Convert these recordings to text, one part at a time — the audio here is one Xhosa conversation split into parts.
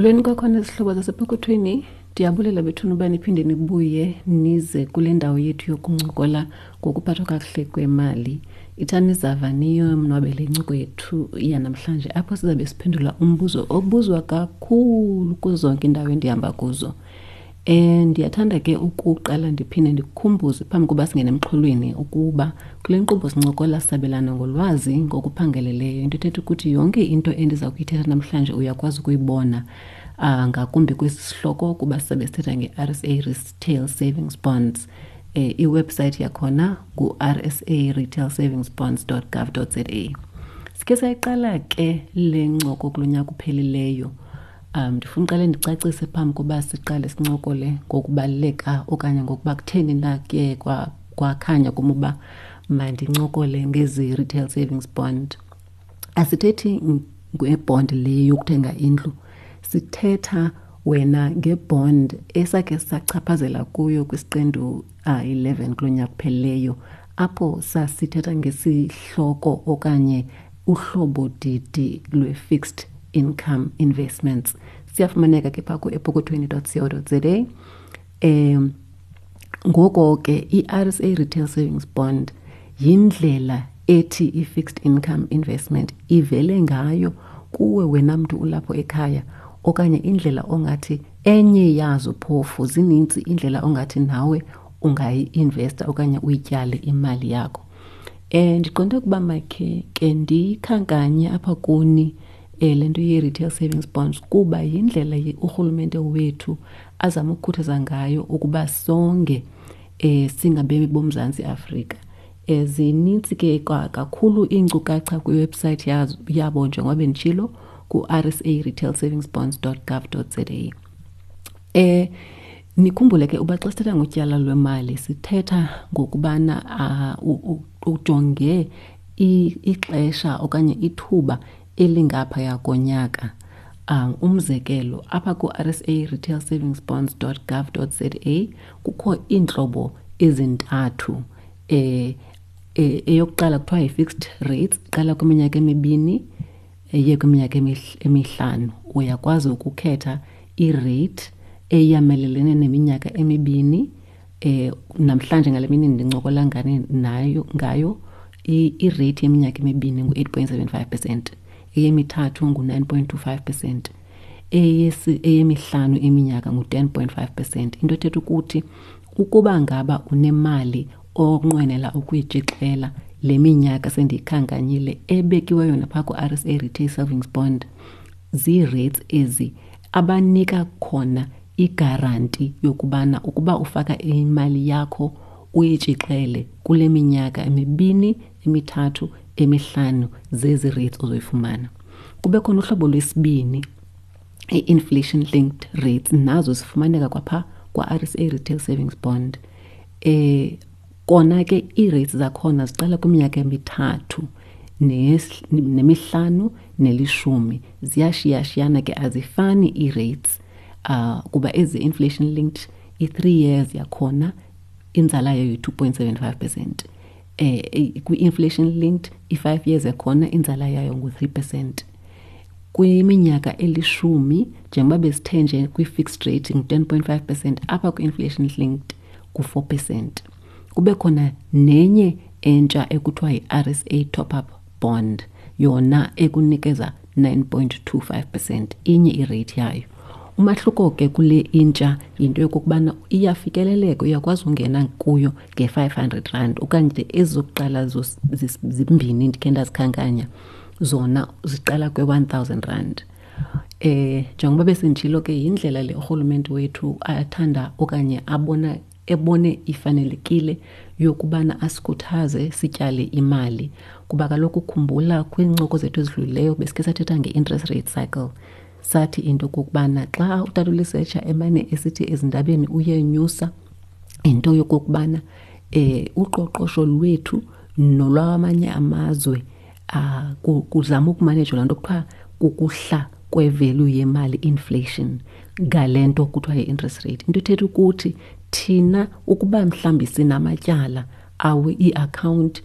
Molweni kwakhona zihlobo zasepokothweni. Ndiyabulela bethuna uba niphinde nibuye nize kule ndawo yethu yokuncokola ngokuphathwa kakuhle kwemali. Ithani zava niyonwabele incoko yethu yanamhlanje apho sizabe siphendula umbuzo obuzwa kakhulu kuzo zonke iindawo endihamba kuzo. Um ndiyathanda ke ukuqala ndiphinde ndikukhumbuze phambi koba singene emxholweni ukuba kule nkqubo sincokola sabelana ngolwazi ngokuphangeleleyo. Into ethetha ukuthi yonke into endiza kuyithetha namhlanje uyakwazi ukuyibona ngakumbi kwesi sihloko kuba sizabe sithetha nge-RSA Retail Savings Bonds. Um iwebhusayithi yakhona ngu-rsa retail savings bonds gov za. Sikhe sayiqala ke le ncoko kulo nyaka uphelileyo. Ndifuna uqale ndicacise phambi koba siqale sincokole ngokubaluleka okanye ngokuba kutheni na kuye kwakhanya kum uba mandincokole ngezi retail savings bond. Asithethi ngebond le yokuthenga indlu, sithetha wena ngebond esakhe sachaphazela kuyo kwisiqendu 11 kulo nyaka uphelileyo, apho sasithetha ngesihloko okanye uhlobo didi lwe-fixed income investments. Siyafumaneka ke phaa ku-epokothweni dot co dot za. Ngoko ke i-RSA Retail Savings Bond yindlela ethi i-fixed income investment ivele ngayo kuwe wena mntu ulapho ekhaya, okanye indlela ongathi enye yazo, phofu zinintsi indlela ongathi nawe ungayi-investa okanye uyityale imali yakho. Ndiqonde ukuba makhe ke ndiyikhankanye apha kuni le nto ye-retail savings bonds, kuba yindlela urhulumente wethu azama ukukhuthaza ngayo ukuba songe singabemi boMzantsi Afrika. Zinintsi ke kakhulu iinkcukacha kwiwebhusayithi yabo njengoba benditshilo ku-R S A retail savings bonds dot gov dot Z A. Nikhumbule ke uba xa sithetha ngotyala lwemali sithetha ngokubana ujonge ixesha okanye ithuba elingaphaya konyaka. Umzekelo, apha ku-R S A retail savings bonds dot gov dot Z A kukho iintlobo ezintathu. Eyokuqala kuthiwa yi-fixed rates, iqala kwiminyaka emibini iye kwiminyaka emihlanu. Uyakwazi ukukhetha i-rate eyamelelene neminyaka emibini. Namhlanje ngale mini ndincokola ngane nayo ngayo, i-rate yeminyaka emibini ngu-8.75%, eyemithathu ngu-9.25%, eyemihlanu iminyaka ngu-10.5%. Into ethetha ukuthi ukuba ngaba unemali onqwenela ukuyitshixela le minyaka sendiyikhankanyile ebekiweyo naphaa ku-R S A Retail Savings Bond, zii-rates ezi abanika khona igaranti yokubana ukuba ufaka imali yakho uyitshixele kule minyaka emibini, emithathu, emihlanu, zezi rates ozoyifumana. Kube khona uhlobo lwesibini, i-inflation linked rates, nazo zifumaneka kwapha kwa-R S A Retail Savings Bond. Kona ke ii-rates zakhona ziqala kwiminyaka emithathu nemihlanu nelishumi. Ziyashiyashiyana ke, azifani ii-rates, kuba ezi inflation linked i-3 years yakhona inzala yayo yi-2.75%. Kwi-inflation linked i-5 years yakhona inzala yayo ngu-3%. Kwiminyaka elishumi, njengoba besithe nje kwi-fixed rate ngu-10.5%, apha kwi-inflation linked ngu-4%. Kube khona nenye entsha ekuthiwa yi-R S A top-up bond, yona ekunikeza 9.25%, inye irate yayo. Umahluko ke kule intsha yinto yokokubana iyafikeleleka, uyakwazi ungena kuyo nge-500 rand, okanye ezokuqala zimbini ndikhe ndazikhankanya zona ziqala kwe-1000 rand. Njengoba besenditshilo ke, yindlela le urhulumente wethu athanda okanye ebone ifanelekile yokubana asikhuthaze sityale imali, kuba kaloku khumbula kwiincoko zethu ezidlulileyo besikhe sathetha nge-interest rate cycle. Sathi into okokubana xa utata uLesetsha emane esithi ezindabeni uyenyusa, into yokokubana uqoqosho lwethu nolwamanye amazwe, kuzama ukumanejwa laa nto kuthiwa kukuhla kwe-value yemali, inflation, ngale nto kuthiwa yi-interest rate. Into ethetha ukuthi thina ukuba mhlawumbi sinamatyala awe ii-account,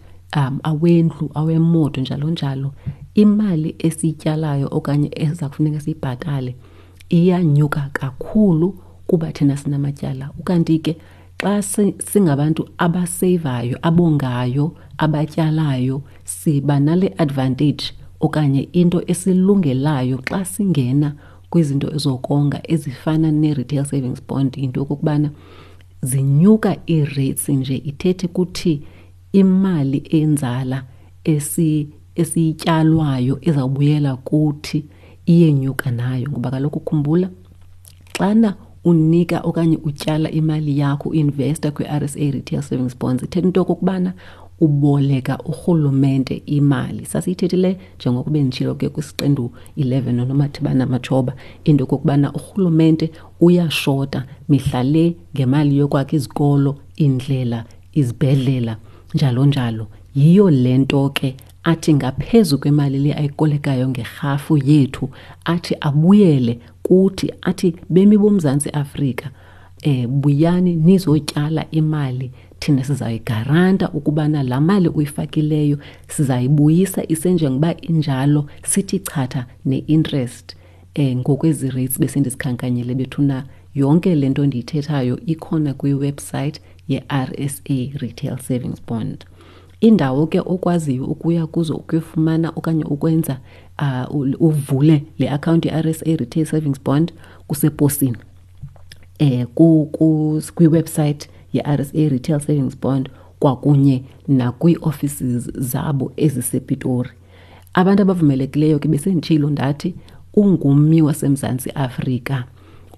awendlu, awemoto, njalo njalo, imali esiyityalayo okanye eza kufuneka siyibhatale Iyanyuka kakhulu kuba thina sinamatyala. Ukanti ke xa singabantu abaseyivayo, abongayo, abatyalayo, siba nale advantage okanye into esilungelayo xa singena kwizinto ezokonga ezifana nee-retail savings bond, yinto yokokubana zinyuka ii-rates nje ithethe ukuthi imali enzala esiyityalwayo izawubuyela kuthi iyenyuka nayo. Ngoba kaloku khumbula, xana unika okanye utyala imali yakho, uinvesta kwi-R S A Retail Savings Bonds, ithetha into yokokubana uboleka urhulumente imali. Sasiyithethile njengokuba benditshilo ke kwisiqendu 11 noNomathibana Matshoba, into yokokubana urhulumente uyashota mihla le ngemali yokwakha izikolo, iindlela, izibhedlela, njalo njalo. Yiyo le nto ke athi ngaphezu kwemali le ayikolekayo ngerhafu yethu, athi abuyele kuthi, athi bemi boMzantsi Afrika, buyani nizotyala imali, thina sizayigaranta ukubana laa mali uyifakileyo sizayibuyisa isenjengoba injalo, sithi chatha ne-interest. Ngokwezi rates besendizikhankanyile bethuna, yonke le nto ndiyithethayo ikhona kwiwebsite ye-R S A Retail Savings Bond. Indawo ke okwaziyo ukuya kuzo ukuyofumana okanye ukwenza uvule le akhawunti ye-R S A Retail Savings Bond kuseposini. Kwiwebsite ye-R S A Retail Savings Bond kwakunye nakwii-offices zabo ezisePitori. Abantu abavumelekileyo ke besenditshilo ndathi ungummi waseMzantsi Afrika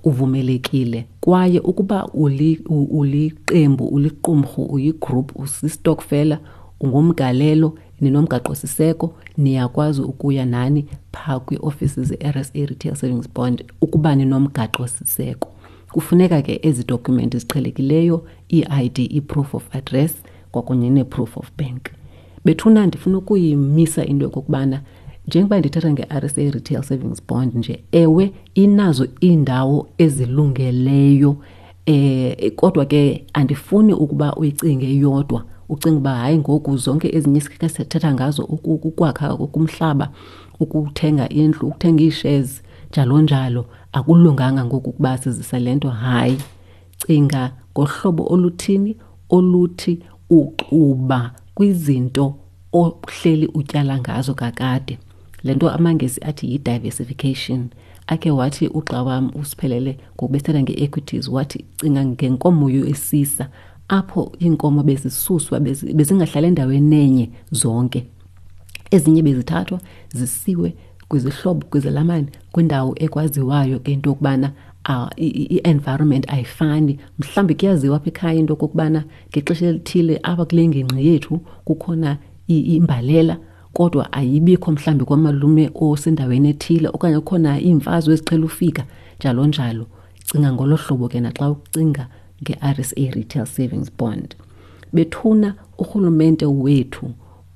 uvumelekile, kwaye ukuba uliqembu, uliqumrhu, uyigroup, usistokfela, ungumgalelo, ninomgaqo-siseko, niyakwazi ukuya nani phaa kwii-ofisi ze-R S A Retail Savings Bond ukuba ninomgaqo-siseko. Kufuneka ke ezi dokumenti ziqhelekileyo, ii-I D, i-proof of address kwakunye nee-proof of bank. Bethuna, ndifuna ukuyimisa into yokokubana njengoba ndithetha nge-R S A Retail Savings Bond nje, ewe inazo iindawo ezilungeleyo, kodwa ke andifuni ukuba uyicinge yodwa, ucinge uba hayi ngoku zonke ezinye isikhe sithetha ngazo, ukwakha kumhlaba, ukuthenga indlu, ukuthenga ii-shares, njalo njalo, akulunganga ngoku ukuba sizise le nto. Hayi, cinga ngohlobo oluthini oluthi uxuba kwizinto ohleli utyala ngazo kakade. Le nto amaNgesi athi yi-diversification. Akhe wathi ugxa wam uSiphelele ngokubethetha nge-equities, wathi cinga ngenkomo yesisa, apho iinkomo bezisuswa, bezingahlali endaweni enye zonke. Ezinye bezithathwa zisiwe kwizihlobo, kwizelamane, kwindawo ekwaziwayo ke into yokubana, i-environment ayifani. Mhlawumbi kuyaziwa apha ekhaya into yokokubana ngexesha elithile apha kule ngingqi yethu kukhona imbalela, kodwa ayibikho mhlawumbi kwamalume osendaweni ethile, okanye kukhona iimfazwe eziqhela ufika, njalo njalo. Cinga ngolo hlobo ke naxa ucinga nge-R S A Retail Savings Bond. Bethuna, urhulumente wethu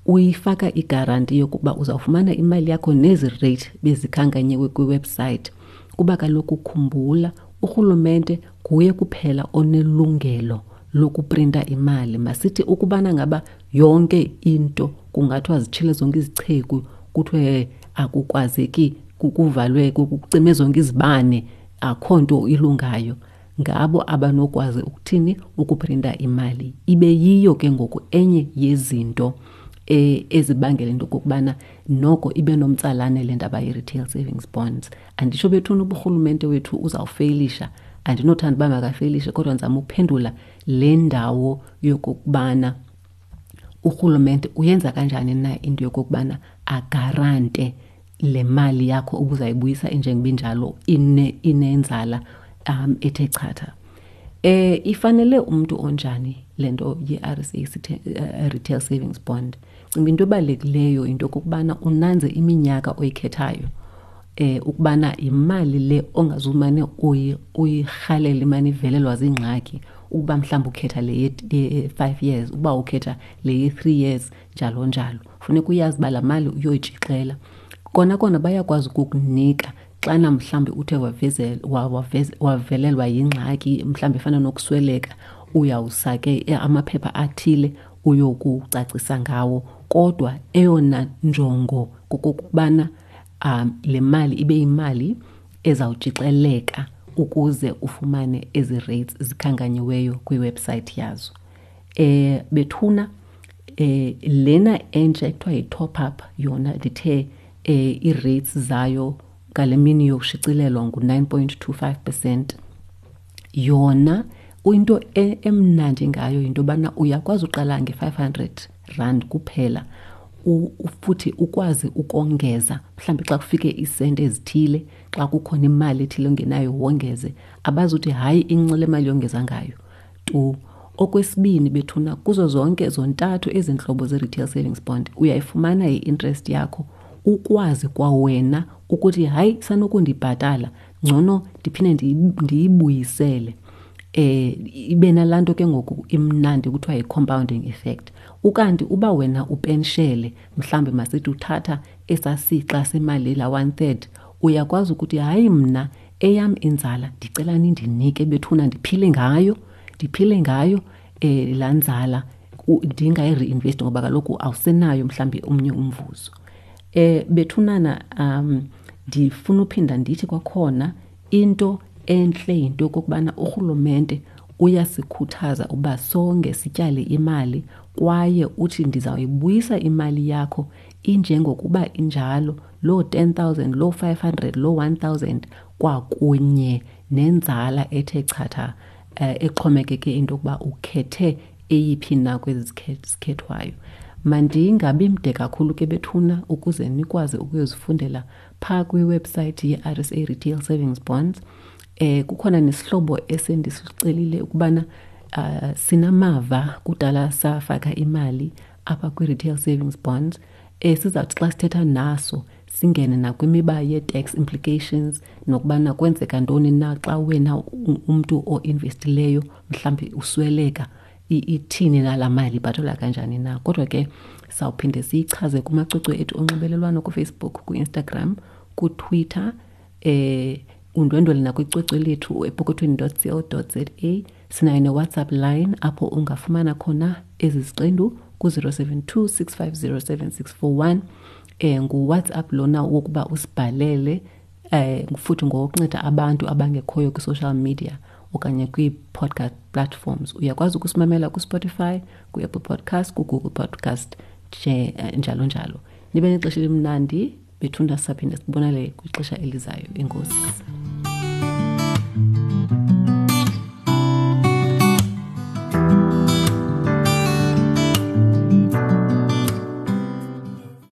uyifaka igaranti yokuba uzawufumana imali yakho nezi rate bezikhankanyiwe kwiwebsite, kuba kaloku khumbula, urhulumente nguye kuphela onelungelo lokuprinta imali. Masithi ukubana ngaba yonke into kungathiwa zitshile zonke izicheku, kuthiwe akukwazeki, kuvalwe, kucime zonke izibane, akho nto ilungayo, ngabo abanokwazi ukuthini ukuprinta imali. Ibe yiyo ke ngoku enye yezinto ezibangela into okokubana noko ibe nomtsalane le ndaba ye-retail savings bonds. Anditsho bethuna uburhulumente wethu uzawufeyilisha, andinothanda uba makafeyilishe, kodwa ndizama ukuphendula le ndawo yokokubana urhulumente uyenza kanjani na into yokokubana agarante le mali yakho ubuzayibuyisa injengoba injalo, inenzala ethe chatha. Ifanele umntu onjani le nto ye-R S A Retail Savings Bond? Cinga into ebalulekileyo into yokokubana unanze iminyaka oyikhethayo, ukubana yimali le ongazumane uyirhalela imane ivelelwa ziingxaki, ukuba mhlawumbi ukhetha le ye-5 years, ukuba ukhetha le ye-3 years, njalo njalo. Funeka uyazi uba laa mali uyoyitshixela. Kona kona bayakwazi ukukunika xana mhlawumbi uthe wavelelwa yingxaki, mhlawumbi efana nokusweleka, uyawusa ke amaphepha athile uyokucacisa ngawo. Kodwa eyona njongo kokokubana le mali ibe yimali ezawutshixeleka ukuze ufumane ezi rates zikhankanyiweyo kwiwebsayithi yazo. Eh bethuna eh lena entsha ekuthiwa yi-top up yona ndithe eh ii-rates zayo ngale mini yokushicilelwa ngu-9.25 percent. Yona into e, emnandi ngayo yinto yobana uyakwazi uqala nge-500 rand kuphela futhi ukwazi ukongeza mhlawumbi xa kufike iisenti ezithile xa kukhona imali ethile ongenayo wongeze abazuthi hayi incinci le mali yongeza ngayo tu okwesibini bethuna kuzo zonke zontathu ezi ntlobo ze-retail savings bond uyayifumana i-interest yakho ukwazi kwawena ukuthi hayi sanokundibhatala ngcono ndiphinde ndiyibuyisele eh ibe nalaa nto ke ngoku imnandi kuthiwa yi-compounding effect ukanti uba wena upenshele mhlawumbi masithi uthatha esasixa semali la one third uyakwazi ukuthi hayi mna eyam inzala ndicela nindinike bethuna ndiphile ngayo ndiphile ngayo eh laa nzala ndingayi-reinvest ngoba kaloku awusenayo mhlawumbi omnye umvuzo eh bethunana um ndifuna uphinda ndithi kwakhona into entle yinto yokokubana urhulumente uyasikhuthaza uba sonke sityale imali kwaye uthi ndizawuyibuyisa imali yakho injengokuba injalo loo 10,000 loo 500 loo 1,000 kwakunye nenzala ethe chatha eh, exhomekeke into yokuba ukhethe eyiphi na kwezi zikhethwayo. Mandingabi mde kakhulu ke bethuna ukuze nikwazi ukuyozifundela phaa kwiwebsayithi ye-RSA Retail Savings Bonds. Eh kukhona nesihlobo esendisicelile ukubana uh, sinamava kudala safaka imali apha kwi-retail savings bonds eh sizawuthi xa sithetha naso singene nakwimiba yee-tax implications nokubana kwenzeka ntoni na xa wena umntu oinvestileyo mhlawumbi usweleka ithini na laa mali ibhatalwa kanjani na kodwa ke sawuphinde siyichaze kumacwecwe ethu onxibelelwano kufacebook kwi-instagram kutwitter eh undwendwele nakwicwecwe lethu epokothweni co za sinayo newhatsapp line apho ungafumana khona ezi ziqendu ku-072 650 7641 eh nguwhatsapp lona wokuba usibhalele eh futhi ngokunceda abantu abangekhoyo kwi-social media okanye kwii-podcast platforms uyakwazi ukusimamela kuspotify kwi-apple podcast kugoogle podcast nje eh, njalo njalo nibe nexesha elimnandi bethunda saphinde sibonale kwixesha elizayo enkosi.